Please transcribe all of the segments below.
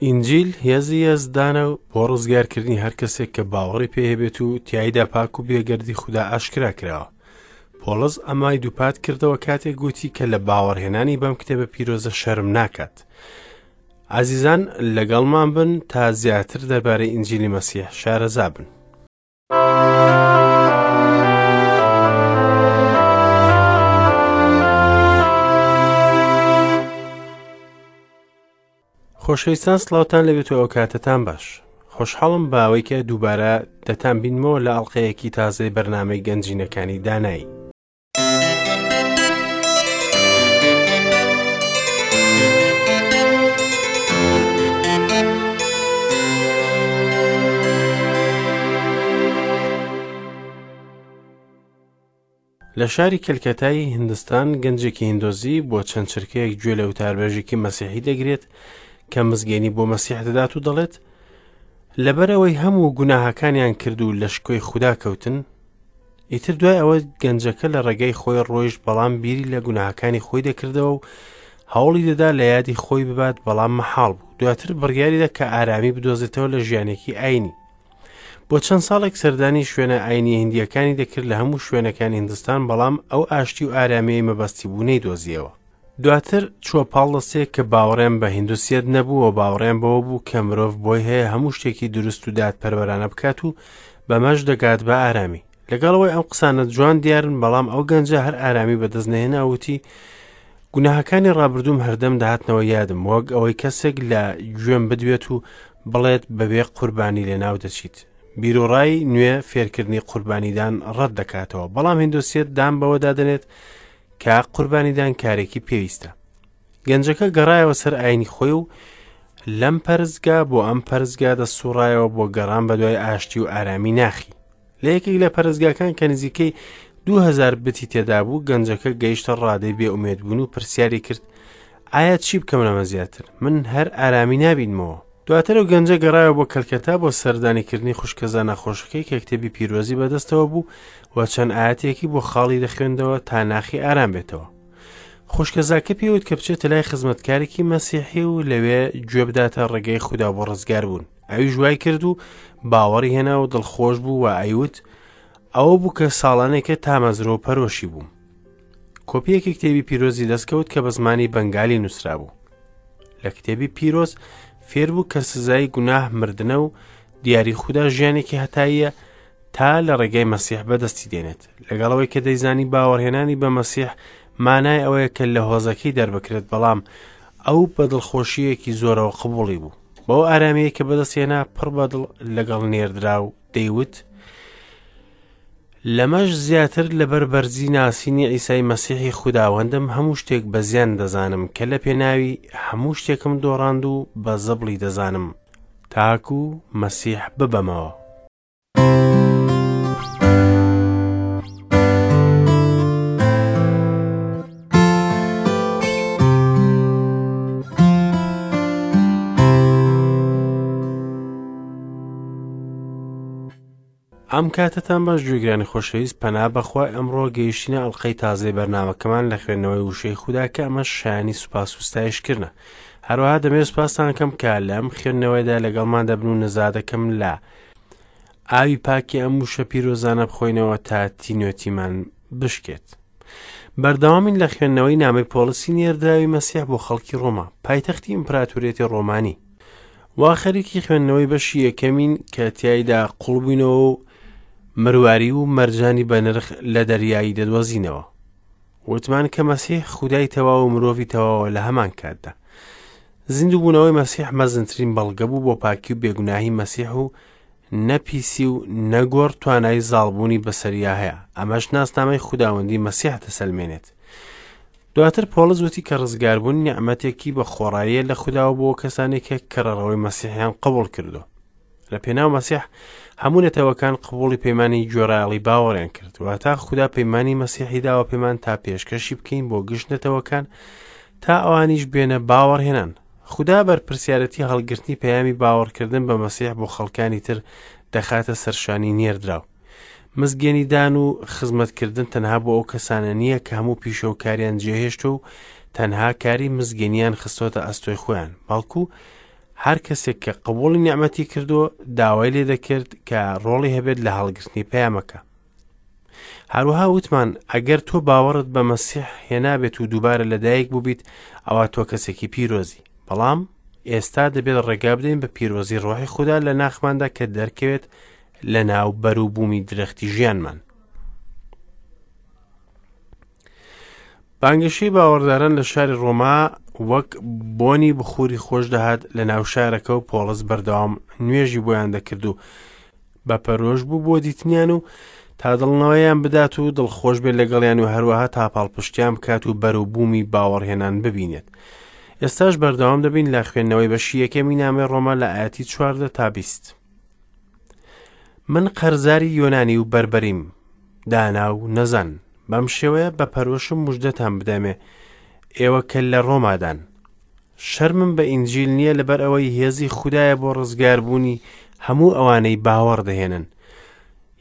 ئینجیل هێزی یەزدانە و بۆ ڕزگارکردنی هەر کەسێک کە باوەڕی پێ هەبێت و تیایدا پاک و بێگەردی خودا ئاشکرا کراوە. پۆڵس ئەمای دووپات کردەوە کاتێک گوتی کە لە باوەڕهێنانی بەم کتێبە پیرۆزە شەرم ناکات. ئازیزان لەگەڵمان بن تا زیاتر دەربارەی ئینجیلی مەسیح شارەزا بن. خۆشەویستان سڵاوتان لەبێت و ئەوکاتەتان باش خۆشحاڵم باوەی کە دووبارە دەتان بینمەوە لە ئەڵلقەیەکی تازەی بەرنمەی گەنجینەکانی دانایی. لە شاری کەلکەتای هندستان گەنجێکی هندۆزی بۆ چەند چرکەیەک گوێ لە وتاربێژێکی مەسیحی دەگرێت کە مزگێنی بۆ مەسیح دەدات و دەڵێت لەبەرەوەی هەموو گوناهەکانیان کرد و لە شکۆی خودا کەوتن ئیتر دوای ئەوە گەنجەکە لە ڕێگەی خۆی ڕۆیشت بەڵام بیری لە گوناهەکانی خۆی دەکردەوە و هەوڵی دەدا لە یادی خۆی ببات بەڵام مەحاڵ بوو دواتر بڕیاریدا کە ئارامی بدۆزێتەوە لە ژیانێکی ئاینی بۆ چەند ساڵێک سەردانی شوێنە ئاینی هندیەکانی دەکرد لە هەموو شوێنەکانی هندستان بەڵام ئەو ئاشتی و ئارامیەی مەبەستی بوو نەیدۆزیەوە دواتر چووە پاڵ دەستەیەک کە باوەڕیان بە هیندوسیەت نەبوو و باوەڕیان بەوە بوو کە مرۆڤ بۆی هەیە هەموو شتێکی دروست و دادپەروەرانە بکات و بەمەش دەگات بە ئارامی لەگەڵ ئەوەی ئەم قسانە جوان دیارن بەڵام ئەو گەنجە هەر ئارامی بەدەست نەهێنا وتی گوناهەکانی ڕابردووم هەردەم دەهاتنەوە یادم وەک ئەوەی کەسێک لە گوێم بدوێت و بڵێت بەبێ قوربانی لەناو دەچیت بیرۆڕای نوێ فێرکردنی قوربانیدان ڕەت دەکاتەوە بەڵام هندوسیەت دان بەوەدا دەنێت کە قوربانیدان کارێکی پێویستە گەنجەکە گەڕایەوە سەر ئاینی خۆی و لەم پەرستگا بۆ ئەم پەرستگا دەسوڕایەوە بۆ گەڕان بە دوای ئاشتی و ئارامی ناخی لە یەکێک لە پەرستگاکان کە نزیکەی 2000 بتی تێدا بوو گەنجەکە گەیشتە ڕادەی بێئومێدبوون و پرسیاری کرد ئایا چی بکەم لەمە زیاتر من هەر ئارامی نابینمەوە دواتر ئەو گەنجە گەڕایەوە بۆ کەلکەتا بۆ سەردانیکردنی خوشکەزا نەخۆشەکەی کە کتێبی پیرۆزی بەدەستەوە بوو و چەند ئاەتێکی بۆ خاڵی دەخوێندەوە تا ناخی ئارام بێتەوە خوشکەزاکە پێوت کە بچێتە لای خزمەتکارێکی مەسیحی و لەوێ گوێ بداتە ڕێگەی خودا بۆ ڕزگار بوون ئەویش وای کرد و باوەڕی هێنا و دڵخۆش بوو و ئەیوت ئەوە بوو کە ساڵانێکە تامەزرۆ و پەرۆشی بووم کۆپیەکی کتێبی پیرۆزی دەستکەوت کە بە زمانی بەنگالی نووسرابوو لە کتێبی پیرۆز فێربوو کە سزای گوناه مردنە و دیاری خودا ژیانێکی هەتاییە تا لە ڕێگەی مەسیح بەدەستی دێنێت لەگەڵەوەی کە دەیزانی باوەڕهێنانی بە مەسیح مانای ئەوەیە کە لە هۆزەکەی دەربکرێت بەڵام ئەو بە دڵخۆشیەکی زۆرەوە قبوڵی بوو بەو ئارامیە کە بەدەستێنا پڕ بەدڵ لەگەڵ نێردرا و دەیوت لەمەش زیاتر لەبەر بەرزی ناسینی عیسای مەسیحی خوداوەندم هەموو شتێک بە زیان دەزانم کە لە پێناوی هەموو شتێکم دۆڕاند و بە زبڵی دەزانم تاکو مەسیح ببەمەوە. ئەم کاتەتان باش گوێگرانی خۆشەویست پەنا بەخوای ئەمڕۆ گەیشتینە ئەڵلقەی تازەی بەرنمەکەمان لە خوێندنەوەی وشەی خودا کە ئەمەش شایانی سوپاس و ستایشکردنە هەروەها دەمێ سوپاستان کەم کە لەم خوێندنەوەیدا لەگەڵمان دەبن و نزا دەکەم لە ئاوی پاکی ئەم وشە پیرۆزانە بخۆینەوە تا تینوێتیمان بشکێت بەردەوامین لە خوێندنەوەی نامەی پۆڵسی نێردراوی مەسیح بۆ خەڵکی ڕۆما پایتەختی ئیمپراتوریەتی ڕۆمانی وا خەریکی خوێندنەوەی بەشی یەکەمین کە تیایدا قوڵبووینەوە و مرواری و مەرجانی بەنرخ لە دەریایی دەدۆزینەوە وتمان کە مەسیح خودای تەواو و مرۆڤی تەواوە لە هەمان کاتدا زیندووبوونەوەی مەسیح مەزنترین بەڵگە بوو بۆ پاکی و بێگوناهی مەسیح و نە پیسی و نە گۆڕ توانای زاڵبوونی بەسەریا هەیە ئەمەش ناسنامەی خوداوەندی مەسیح دەسەلمێنێت دواتر پۆڵس وتی کە ڕزگاربوون نیعمەتێکی بە خۆڕاییە لە خوداوە بۆ کەسانێک کە کەڕەڕەوەی مەسیحیان قبوڵ کردو لە پێناو مەسیح هەموو نەتەوەکان قبوڵی پەیمانی گوێڕایەڵی باوەڕیان کرد واتا خودا پەیمانی مەسیحی داوە پێمان تا پێشکەشی بکەین بۆ گشت نەتەوەکان تا ئەوانیش بێنە باوەڕهێنان خودا بەرپرسیارەتی هەڵگرتنی پەیامی باوەڕکردن بە مەسیح بۆ خەڵکانی تر دەخاتە سەرشانی نێردراو مزگێنیدان و خزمەتکردن تەنها بۆ ئەو کەسانە نییە کە هەموو پیشە و کاریان جێهێشتوە و تەنها کاری مزگێنیان خستۆتە ئەستۆی خۆیان، بەڵکو هەر کەسێک کە قبوڵی نیعمەتی کردووە داوای لێ دەکرد کە ڕۆڵی هەبێت لە هەڵگرتنی پەیامەکە. هەروەها وتمان ئەگەر تۆ باوەڕت بە مەسیح هێنابێت و دووبارە لەدایک بووبیت ئەوا تۆ کەسێکی پیرۆزی. بەڵام ئێستا دەبێت ڕێگا بدەین بە پیرۆزی ڕۆحی خودا لە ناخماندا کە دەرکەوێت لە ناو بەروبوومی درەختی ژیانمان. بانگەشەی باوەڕداران لە شاری ڕۆما وەک بۆنی بخوری خۆش دەهات لە ناو شارەکە و پۆڵس بەردەوام نوێژی بۆیان دەکرد و بە پەرۆش بوو بۆ دیتنیان و تا دڵنەوەیان بدات و دڵخۆش بێت لەگەڵیان و هەروەها تا پاڵپشتیان بکات و بەروبوومی باوەڕهێنان ببینێت. ئێستاش بەردەوام دەبین لە خوێندنەوەی بەشی یەکەمی نامەی ڕۆما لە ئاەتی 14 تا 20. من قەرزاری یۆنانی و بەربەریم، دانا و نەزان، بەم شێوەیە بە پەرۆشم مژدەتان بدەمێ، ئێوە کە لە ڕۆمادان. شەرمم بە ئینجیل نییە لەبەر ئەوەی هێزی خودایە بۆ ڕزگاربوونی هەموو ئەوانەی باوەڕ دەهێنن.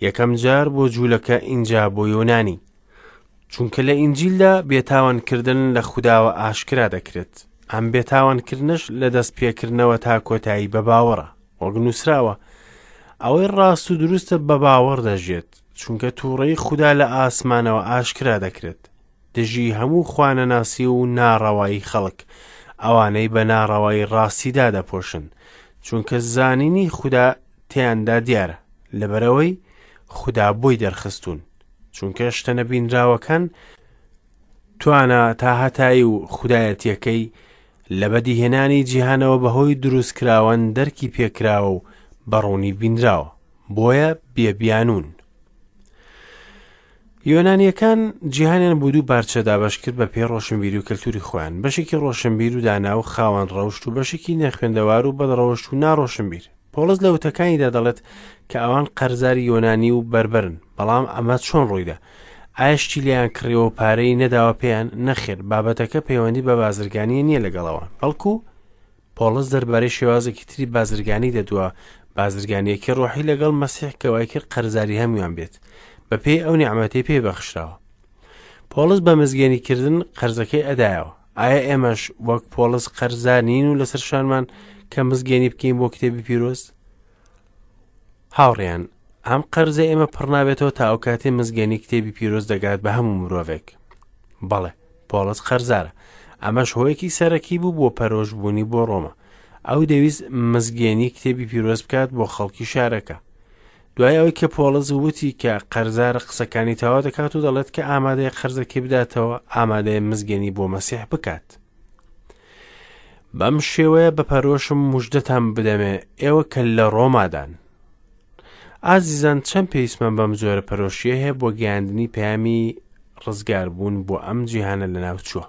یەکەم جار بۆ جوولەکە ئینجا بۆ یۆنانی. چونکە لە ئینجیلدا بێتاوانکردن لە خوداوە ئاشکرا دەکرێت. ئەم بێتاوانکردنەش لە دەست پێکردنەوە تا کۆتایی بە باوەڕە. وەک نووسراوە، ئەوەی ڕاست و دروستە بە باوەڕ دەژێت، چونکە تووڕەی خودا لە ئاسمانەوە ئاشکرا دەکرێت دژی هەموو خوانەناسی و ناڕەوایی خەڵک، ئەوانەی بە ناڕەوایی ڕاستی دادەپۆشن، چونکە زانینی خودا تێیاندا دیارە، لەبەرئەوەی خودا بۆی دەرخستوون، چونکە شتە نەبینراوەکان توانا تاهەتایی و خودایەتیەکەی لە بەدیهێنانی جیهانەوە بەهۆی دروستکراوان دەرکی پێکراوە و بە ڕوونی بینراوە، بۆیە بێ بیانوون. یۆنانیەکان جیهانیان بۆ دوو پارچە دابەش کرد بە پێی ڕۆشنبیری و کەلتوری خۆیان، بەشێکی ڕۆشنبیر و دانا و خاوەن ڕەوشت و بەشێکی نەخوێندەوار و بەدڕەوشت و ناڕۆشنبیر. پۆڵس لە وتەکانیدا دەڵێت کە ئەوان قەرزاری یۆنانی و بەربەرن، بەڵام ئەمە چۆن ڕوویدا؟ ئایا شتی لێیان کڕیوە و پارەی نەداوە پێیان؟ نەخێر، بابەتەکە پەیوەندی بە بازرگانییە نییە لەگەڵ ئەوان، بەڵکو پۆڵس دەربارەی شێوازێکی تری بازرگانی دەدوا، بازرگانییەکی ڕۆحی لەگەڵ مەسیح کە وای کرد قەرزاری هەموویان بێت، بەپێی ئەو نیعمەتەی پێی بەخشراوە. پۆڵس بە مزگێنیکردن قەرزەکەی ئەدایەوە. ئایا ئێمەش وەک پۆڵس قەرزار نین و لەسەر شانمان کە مزگێنی بکەین بۆ کتێبی پیرۆز؟ هاوڕێیان، ئەم قەرزە ئێمە پڕ نابێتەوە تا ئەو کاتێ مزگێنی کتێبی پیرۆز دەگات بە هەموو مرۆڤێک. بەڵێ، پۆڵس قەرزارە. ئەمەش هۆیەکی سەرەکی بوو بۆ پەرۆشبوونی بۆ ڕۆما. ئەو دەویست مزگێنی کتێبی پیرۆز بکات بۆ خەڵکی شارەکە. دوای ئەوەی کە پۆڵس وتی کە قەرزارە قسەکانی تەواو دەکات و دەڵێت کە ئامادەیە قەرزەکەی بداتەوە، ئامادەیە مزگێنی بۆ مەسیح بکات. بەم شێوەیە بە پەرۆشم مژدەتان بدەمێ ئێوە کە لە ڕۆمادان. ئازیزان چەند پێویستمان بەم جۆرە پەرۆشیە هەیە بۆ گەیاندنی پەیامی ڕزگاربوون بۆ ئەم جیهانە لەناوچووە.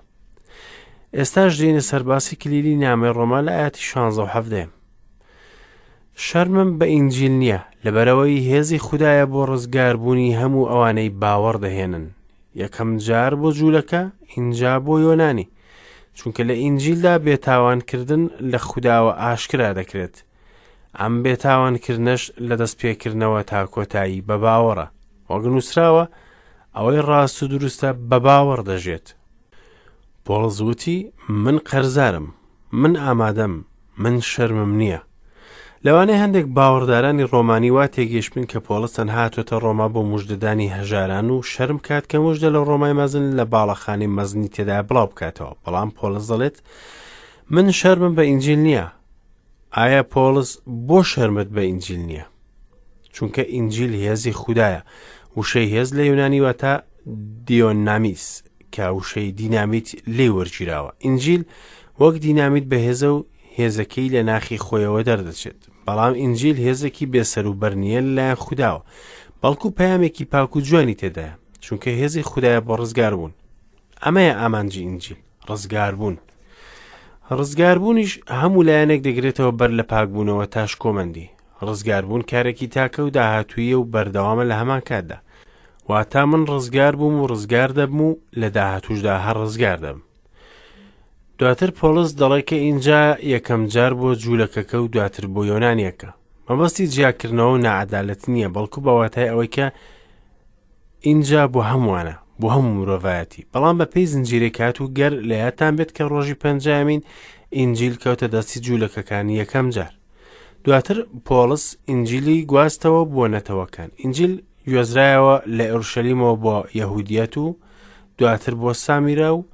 ئێستاش دێینە سەر باسی کلیلی نامەی ڕۆما لە ئاەتی 16 و 17. شەرمم بە ئینجیل نییە، لەبەرئەوەی هێزی خودایە بۆ ڕزگاربوونی هەموو ئەوانەی باوەڕ دەهێنن، یەکەم جار بۆ جوولەکە، ئینجا بۆ یۆنانی، چونکە لە ئینجیلدا بێتاوانکردن لە خوداوە ئاشکرا دەکرێت. ئەم بێتاوانکردنەش لە دەستپێکردنەوە تا کۆتایی بە باوەڕە. وەک نووسراوە، ئەوەی ڕاست و دروستە بە باوەڕ دەژێت. پۆڵس وتی، من قەرزارم، من ئامادەم، من شەرمم نییە. لەوانەیە هەندێک باوەڕدارانی ڕۆمانی وا تێگەیشتبن کە پۆڵس تەنها هاتووەتە ڕۆما بۆ مژدەدانی هەژاران و شەرم بکات کە مژدە لە ڕۆمای مەزن لە باڵەخانەی مەزنی تێدا بڵاو بکاتەوە، بەڵام پۆڵس دەڵێت من شەرمم بە ئینجیل نییە. ئایا پۆڵس بۆ شەرمت بە ئینجیل نییە؟ چونکە ئینجیل هێزی خودایە. وشەی هێز لە یۆنانی واتە دیۆنامیس کە وشەی دینامیت لێی وەرگیراوە. ئینجیل وەک دینامیت بەهێزە و هێزەکەی لە ناخی خۆیەوە دەردەچێت. بەڵام ئینجیل هێزێکی بێسەروبەر نییە لەلایەن خوداوە، بەڵکو پەیامێکی پاک و جوانی تێدایە، چونکە هێزی خودایە بۆ ڕزگاربوون. ئەمەیە ئامانجی ئینجیل، ڕزگاربوون. ڕزگاربوونیش هەموو لایەنێک دەگرێتەوە بەر لە پاکبوونەوە تا شکۆمەندی. ڕزگاربوون کارێکی تاکە و داهاتوویە و بەردەوامە لە هەمان کاتدا. واتا من ڕزگار بووم و ڕزگار دەبم و لە داهاتووشدا هەر ڕزگار دەبم. دواتر پۆڵس دەڵێ کە ئینجا یەکەم جار بۆ جوولەکەکە و دواتر بۆ یۆنانیەکە. مەبەستی جیاکردنەوە و ناعەدالەت نییە، بەڵکو بە واتای ئەوەی کە ئینجا بۆ هەمووانە، بۆ هەموو مرۆڤایەتی. بەڵام بە پێی زنجیرەی کات و گەر لە یادتان بێت کە ڕۆژی پەنجایەمین ئینجیل کەوتە دەستی جوولەکەکان یەکەم جار. دواتر پۆڵس ئینجیلی گواستەوە بۆ نەتەوەکان. ئینجیل گوێزرایەوە لە ئۆرشەلیمەوە بۆ یەهودیەت و دواتر بۆ سامیرا و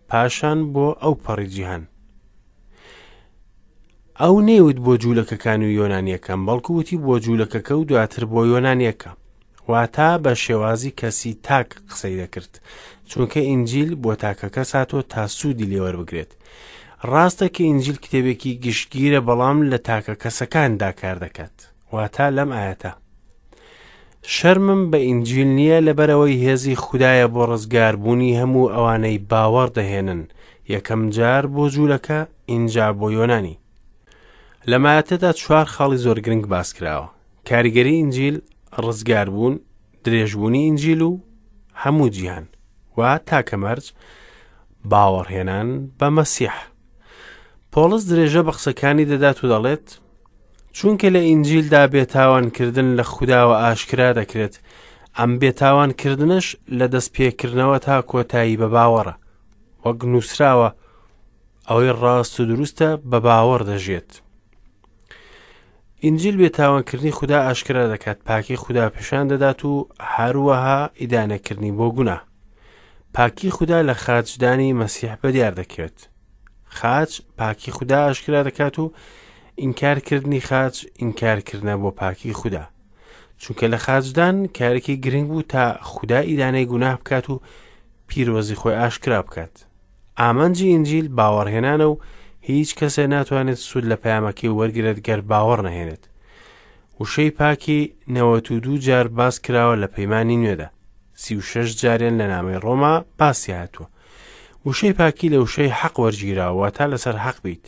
پاشان بۆ ئەو پەڕی جیهان. ئەو نەیوت بۆ جوولەکەکان و یۆنانیەکان، بەڵکو وتی بۆ جوولەکەکە و دواتر بۆ یۆنانیەکە. واتا بە شێوازی کەسی تاک قسەی دەکرد، چونکە ئینجیل بۆ تاکە کەس هاتووە تا سوودی لێوەربگرێت. ڕاستە کە ئینجیل کتێبێکی گشتگیرە بەڵام لە تاکە کەسەکاندا کار دەکات. واتا لەم ئاەتە شەرمم بە ئینجیل نییە لەبەرەوەی هێزی خودایە بۆ ڕزگاربوونی هەموو ئەوانەی باوەڕ دەهێنن، یەکەم جار بۆ جوولەکە ئینجا بۆ یۆنانی. لەم ئایەتەدا چوار خاڵی زۆر گرنگ باس کراوە، کاریگەری ئینجیل، ڕزگاربوون، درێژبوونی ئینجیل و هەموو جیهان و تاکە مەرج باوەڕهێنان بە مەسیح. پۆڵس درێژە بە قسەکانی دەدات و دەڵێت چونکە لە ئینجیلدا بێتاوانکردن لە خوداوە ئاشکرا دەکرێت، ئەم بێتاوانکردنەش لە دەستپێکردنەوە تا کۆتایی بە باوەڕە، وەک نووسراوە ئەوەی ڕاست و دروستە بە باوەڕ دەژێت. ئینجیل بێتاوانکردنی خودا ئاشکرا دەکات، پاکی خودا پیشان دەدات و هەروەها ئیدانەکردنی بۆ گوناه. پاکی خودا لە خاچدانی مەسیح بەدیار دەکەوێت. خاچ پاکی خودا ئاشکرا دەکات و ئینکارکردنی خاچ ئینکارکردنە بۆ پاکی خودا. چونکە لە خاچدان کارێکی گرنگ بوو تا خودا ئیدانەی گوناه بکات و پیرۆزی خۆی ئاشکرا بکات. ئامانجی ئینجیل باوەڕهێنانە و هیچ کەسێ ناتوانێت سوود لە پەیامەکەی وەرگرێت گەر باوەڕ نەهێنێت. وشەی پاکی 92 جار باس کراوە لە پەیمانی نوێدا. 36 جاریان لە نامەی ڕۆما باسی هاتووە. وشەی پاکی لە وشەی حەق وەرگیراوە، واتا لەسەر حەق بیت،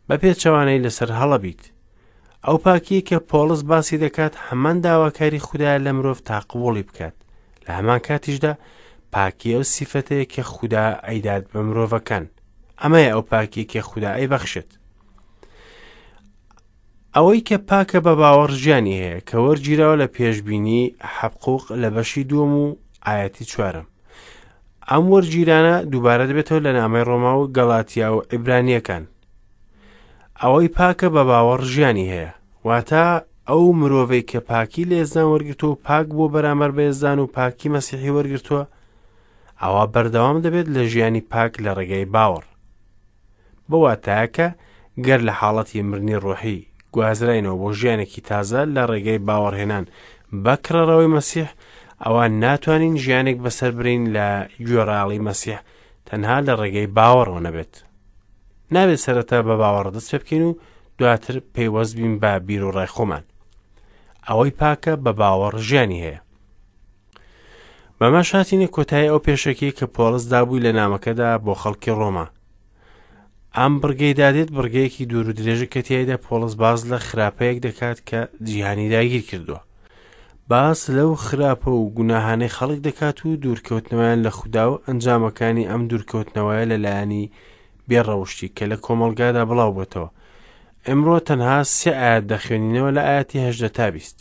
بە پێچەوانەی لەسەر هەڵە بیت. ئەو پاکییە کە پۆڵس باسی دەکات هەمان داواکاری خودایە لە مرۆڤ تا قبوڵی بکات، لە هەمان کاتیشدا پاکی ئەو سیفەتەیە کە خودا ئەیدات بە مرۆڤەکان. ئەمەیە ئەو پاکیە کە خودا ئەیبەخشێت. ئەوەی کە پاکە بە باوەڕ ژیانی هەیە، کە وەرگیراوە لە پێشبینی حەبقوق لە بەشی دووەم و ئایەتی چوارەم. ئەم وەرگیرانە دووبارە دەبێتەوە لە نامەی ڕۆما و گەڵاتیا و عیبرانیەکان. ئەوەی پاکە بە باوەڕ ژیانی هەیە، واتە ئەو مرۆڤەی کە پاکی لە یەزدان وەرگرتووە و پاک بووە بەرامبەر بە یەزدان و پاکی مەسیحی وەرگرتووە، ئەوا بەردەوام دەبێت لە ژیانی پاک لە ڕێگەی باوەڕ. بە واتایە کە گەر لە حاڵەتی مردنی ڕۆحی گوازراینەوە بۆ ژیانێکی تازە لە ڕێگەی باوەڕهێنان بە کڕەڕەوەی مەسیح، ئەوا ناتوانین ژیانێک بەسەر برین لە گوێڕایەڵی مەسیح تەنها لە ڕێگەی باوەڕەوە نەبێت. نابێت سەرەتا بە باوەڕ دەست پێ بکەین و دواتر پەیوەست بین بە بیروڕای خۆمان. ئەوەی پاکە بە باوەڕ ژیانی هەیە. بەمەش هاتینە کۆتایی ئەو پێشەکیەی کە پۆڵس دابووی لە نامەکەدا بۆ خەڵکی ڕۆما. ئەم بڕگەی دادێت بڕگەیەکی دوور و درێژە کە تیایدا پۆڵس باس لە خراپەیەک دەکات کە جیهانی داگیر کردووە. باس لەو خراپە و گوناهانەی خەڵک دەکات و دوورکەوتنەوەیان لە خودا و ئەنجامەکانی ئەم دوورکەوتنەوەیە لە لایەنی بێڕەوشتی کە لە کۆمەڵگادا بڵاو بۆتەوە. ئەمڕۆ تەنها سێ ئاەت دەخوێنینەوە لە ئاەتی هەژدە تا بیست.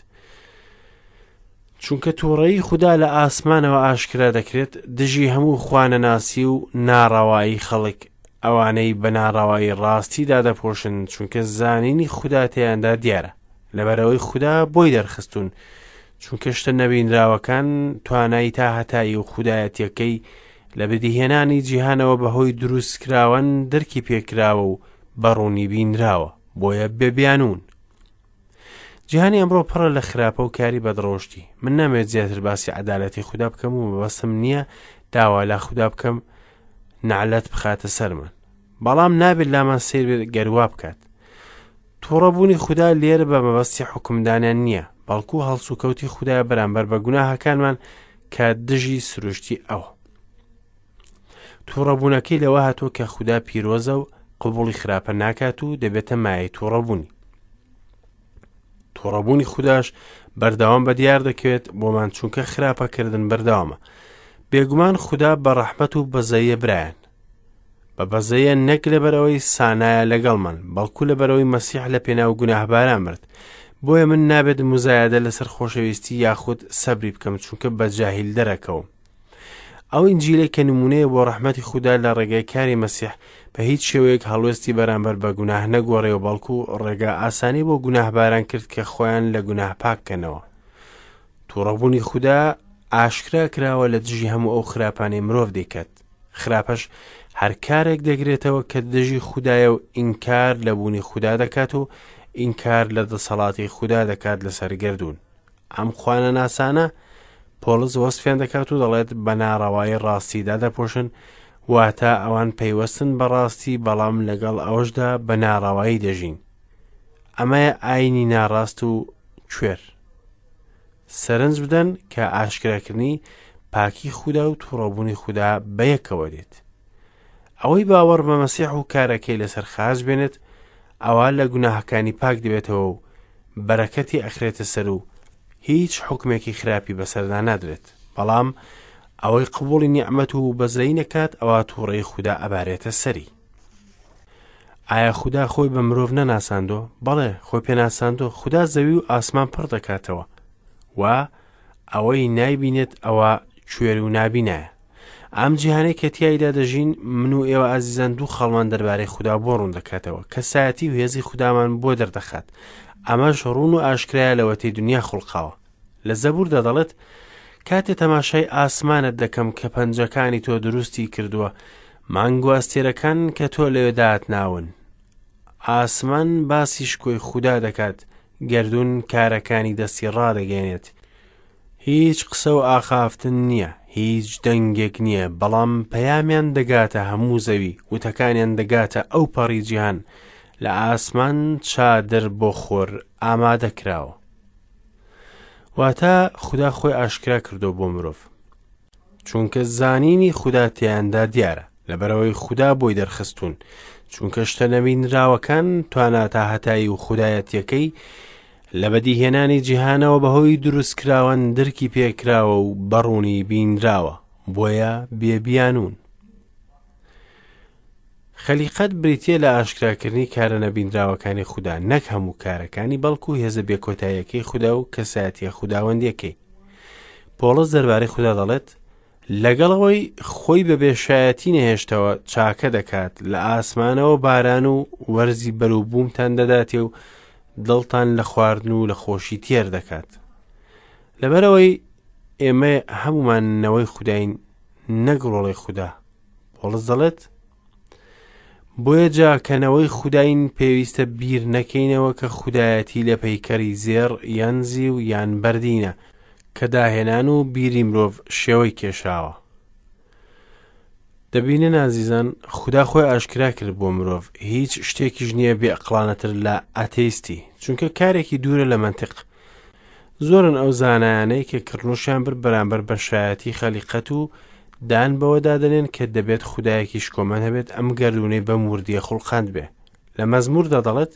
چونکە تووڕەیی خودا لە ئاسمانەوە ئاشکرا دەکرێت دژی هەموو خوانەناسی و ناڕەوایی خەڵک، ئەوانەی بە ناڕەوایی ڕاستی دادەپۆشن، چونکە زانینی خودا تێیاندا دیارە، لەبەرئەوەی خودا بۆی دەرخستوون، چونکە شتە نەبینراوەکان توانای تاهەتایی و خودایەتیەکەی لە بەدیهێنانی جیهانەوە بەهۆی دروستکراوان دەرکی پێکراوە و بە ڕوونی بینراوە، بۆیە بێ بیانوون. جیهانی ئەمڕۆ پڕە لە خراپە و کاری بەدڕەوشتی. من نامەوێت زیاتر باسی عەدالەتی خودا بکەم و مەبەستم نییە داوا لە خودا بکەم نەعلەت بخاتە سەرمان. بەڵام نابێت لامان سەیر بێت گەر وا بکات. تووڕەبوونی خودا لێرە بە مەبەستی حوکمدانیان نییە، بەڵکو هەڵسوکەوتی خودایە بەرامبەر بە گوناهەکانمان کە دژی سروشتی ئەوە. تووڕەبوونەکەی لەوە هاتووە کە خودا پیرۆزە و قبوڵی خراپە ناکات و دەبێتە مایەی تووڕەبوونی. تووڕەبوونی خوداش بەردەوام بە دیار دەکەوێت بۆمان چونکە خراپەکردن بەردەوامە. بێگومان خودا بە ڕەحمەت و بەزەیە برایان. بە بەزەیە نەک لەبەرئەوەی سانایە لەگەڵمان، بەڵکو لەبەرئەوەی مەسیح لە پێناو گوناهباران مرد. بۆیە من نابێت موزایەدە لەسەر خۆشەویستی یاخود سەبری بکەم چونکە بە جاهیل دەرەکەوم. ئەو ئینجیلەی کە نمونەیە بۆ ڕەحمەتی خودا لە ڕێگای کاری مەسیح بە هیچ شێوەیەک هەڵوێستی بەرامبەر بە گوناه نەگۆڕێ و بەڵکو ڕێگا ئاسانی بۆ گوناهباران کرد کە خۆیان لە گوناه پاک کەنەوە. توڕەبوونی خودا ئاشکرا کراوە لە دژی هەموو ئەو خراپانەی مرۆڤ دەیکات. خراپەش هەر کارێک دەگرێتەوە کە دژی خودایە و ئینکار لە بوونی خودا دەکات و ئینکار لە دەسەڵاتی خودا دەکات لەسەر گەردوون. ئەم خوانەناسانە پۆڵس وەسفیان دەکات و دەڵێت بە ناڕەوایی ڕاستی دادەپۆشن، واتە ئەوان پەیوەستن بە ڕاستی بەڵام لەگەڵ ئەوەشدا بە ناڕەوایی دەژین. ئەمەیە ئاینی ناڕاست و کوێر. سەرنج بدەن کە ئاشکراکردنی پاکی خودا و تووڕەبوونی خودا بەیەکەوە دێت. ئەوەی باوەڕ بە مەسیح و کارەکەی لەسەر خاچ بێنێت ئەوا لە گوناهەکانی پاک دەبێتەوە و بەرەکەتی ئەخرێتە سەر و هیچ حوکمێکی خراپی بەسەردا نادرێت. بەڵام ئەوەی قبوڵی نیعمەت و بەزەیی نەکات ئەوا تووڕەیی خودا ئەبارێتە سەری. ئایا خودا خۆی بە مرۆڤ نەناساندۆ؟ بەڵێ خۆی پێناساندۆ. خودا زەوی و ئاسمان پڕ دەکاتەوە و ئەوەی نایبینێت ئەوە کوێر و نابینایە. ئەم جیهانەی کە تیایدا دەژین من و ئێوە ئازیزان دوو خاڵمان دەربارەی خودا بۆ ڕوون دەکاتەوە کەسایەتی و هێزی خودامان بۆ دەردەخات ئەمەش ڕوون و ئاشکرایە لەوەتەی دنیا خوڵقاوە لە زەبوردا دەڵێت کاتێ تەماشای ئاسمانت دەکەم کە پەنجەکانی تۆ دروستی کردووە مانگ و ئەستێرەکان کە تۆ لەوێ داتناون ئاسمان باسی شکۆی خودا دەکات گەردوون کارەکانی دەستی ڕادەگەێنێت هیچ قسە و ئاخافتن نییە، هیچ دەنگێک نییە، بەڵام پەیامیان دەگاتە هەموو زەوی، وتەکانیان دەگاتە ئەو پەڕی جیهان، لە ئاسمان چادر بۆ خۆر ئامادە کراوە. واتە خودا خۆی ئاشکرا کردووە بۆ مرۆڤ. چونکە زانینی خودا تێیاندا دیارە، لەبەرئەوەی خودا بۆی دەرخستوون، چونکە شتە نەبینراوەکان توانا تاهەتایی و خودایەتیەکەی لە بەدیهێنانی جیهانەوە بەهۆی دروستکراوان درکی پێکراوە و بەڕوونی بینراوە، بۆیە بێ بیانوون. خەلیقەت بریتییە لە ئاشکراکردنی کارە نەبینراوەکانی خودا، نەک هەموو کارەکانی، بەڵکو هێزە بێکۆتاییەکەی خودا و کەسایەتیە خوداوەندیەکەی. پۆڵس دەربارەی خودا دەڵێت، لەگەڵ ئەوەی خۆی بە بێشایەتی نەهێشتەوە چاکە دەکات، لە ئاسمانەوە باران و وەرزی بەروبوومتان دەداتێ و دڵتان لە خواردن و لە خۆشی تێر دەکات. لەبەرئەوەی ئێمە هەمومان نەوەی خوداین نەک ڕۆڵەی خودا. پۆڵس دەڵێت، بۆیە جا کە نەوەی خوداین پێویستە بیر نەکەینەوە کە خودایەتی لە پەیکەری زێڕ یان زیو یان بەردینە کە داهێنان و بیری مرۆڤ شێوەی کێشاوە. دەبینن ئازیزان خودا خۆی ئاشکرا کرد بۆ مرۆڤ هیچ شتێکیش نییە بێئەقڵانەتر لە ئاتەیستی چونکە کارێکی دوورە لە مەنتق زۆرن ئەو زانایانەی کە کڕنوشیان برد بەرامبەر بە شایەتی خەلیقەت و دان بەوەدا دەنێن کە دەبێت خودایەکی شکۆمەند هەبێت ئەم گەردوونەی بەم وردیە خوڵقاند بێ. لە مەزموردا دەڵێت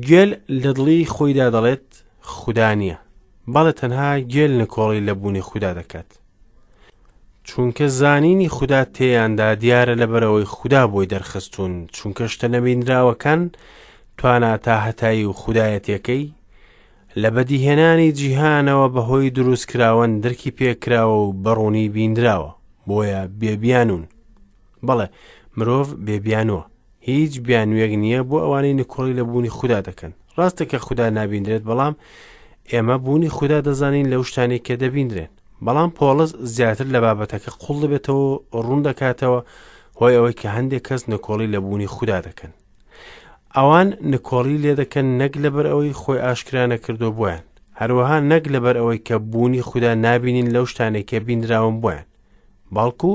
گێل لە دڵی خۆیدا دەڵێت خودا نییە. بەڵێ تەنها گێل نکۆڵی لە بوونی خودا دەکات. چونکە زانینی خودا تێیاندا دیارە لەبەرئەوەی خودا بۆی دەرخستوون، چونکە شتە نەبینراوەکان توانا تاهەتایی و خودایەتیەکەی لە بەدیهێنانی جیهانەوە بەهۆی دروستکراوان درکی پێکراوە و بەڕوونی بینراوە، بۆیە بێ بیانوون. بەڵێ مرۆڤ بێ بیانووە. هیچ بیانوویەک نییە بۆ ئەوانەی نکۆڵی لە بوونی خودا دەکەن. ڕاستە کە خودا نابیندرێت، بەڵام ئێمە بوونی خودا دەزانین لەو شتانەی کە دەبیندرێن. بەڵام پۆڵس زیاتر لە بابەتەکە قوڵ دەبێتەوە و ڕوون دەکاتەوە هۆی ئەوەی کە هەندێک کەس نکۆڵی لە بوونی خودا دەکەن. ئەوان نکۆڵی لێ دەکەن نەک لەبەر ئەوەی خۆی ئاشکرا نەکردووە بۆیان، هەروەها نەک لەبەر ئەوەی کە بوونی خودا نابینین لەو شتانەی کە بینراون بۆیان، بەڵکو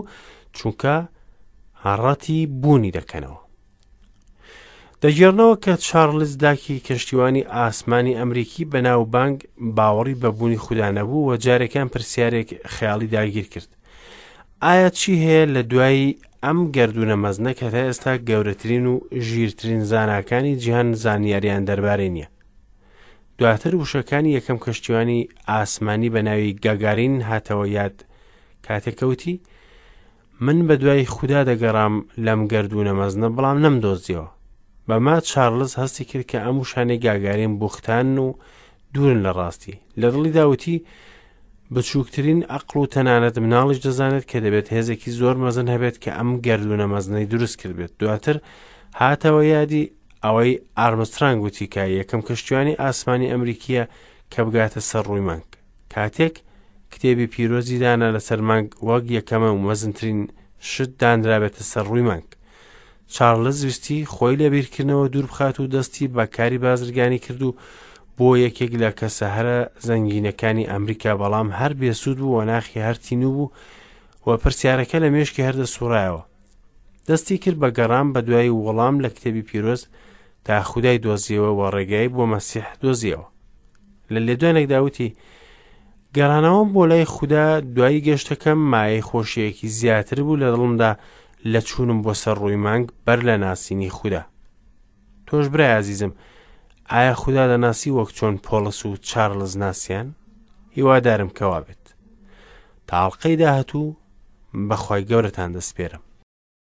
چونکە ڕەتی بوونی دەکەنەوە. دەگێڕنەوە کە چارلز داکی کەشتیوانی ئاسمانی ئەمریکی بەناوبانگ باوەڕی بە بوونی خودا نەبوو و جارێکیان پرسیارێک خەیاڵی داگیر کرد. ئایا چی هەیە لە دوای ئەم گەردوونە مەزنە کە تا ئێستا گەورەترین و ژیرترین زاناکانی جیهان زانیاریان دەربارەی نییە؟ دواتر وشەکانی یەکەم کەشتیوانی ئاسمانی بە ناوی گاگارین هاتەوە یاد کاتێک کەوتی من بە دوای خودا دەگەڕام لەم گەردوونە مەزنە بەڵام نەمدۆزیەوە. بەمە چارلز هەستی کرد کە ئەم وشانەی گاگارین بوختانن و دوورن لە ڕاستی. لە دڵیدا وتی، بچووکترین ئەقڵ و تەنانەت مناڵیش دەزانێت کە دەبێت هێزێکی زۆر مەزن هەبێت کە ئەم گەردوونە مەزنەی دروست کردبێت. دواتر هاتەوە یادی ئەوەی ئارمسترانگ وتی کە یەکەم کەشتیوانی ئاسمانی ئەمریکییە کە بگاتە سەر ڕووی مانگ. کاتێک کتێبی پیرۆزی دانا لەسەر مانگ وەک یەکەمە و مەزنترین شت دانرابێتە سەر ڕووی مانگ. چارلز ویستی خۆی لە بیرکردنەوە دوور بخات و دەستی بە کاری بازرگانی کرد و بۆ یەکێک لە کەسە هەرە زەنگینەکانی ئەمریکا بەڵام هەر بێسوود بوو و ناخی هەر تینوو بوو و پرسیارەکە لە مێشکی هەر دەسوڕایەوە. دەستی کرد بە گەڕان بە دوای وەڵام لە کتێبی پیرۆز تا خودای دۆزیەوە و ڕێگای بۆ مەسیح دۆزیەوە. لە لێدوانێکدا وتی گەڕانەوەم بۆ لای خودا دوای گەشتەکەم مایەی خۆشیەکی زیاتر بوو لە دڵمدا لە چوونم بۆ سەر ڕووی مانگ بەر لە ناسینی خودا. تۆش برای ئازیزم ئایا خودا دەناسی وەک چۆن پۆڵس و چارلز ناسیان؟ هیوادارم کەوا بێت. تا ئەڵقەی داهاتوو بەخوای گەورەتان دەسپێرم.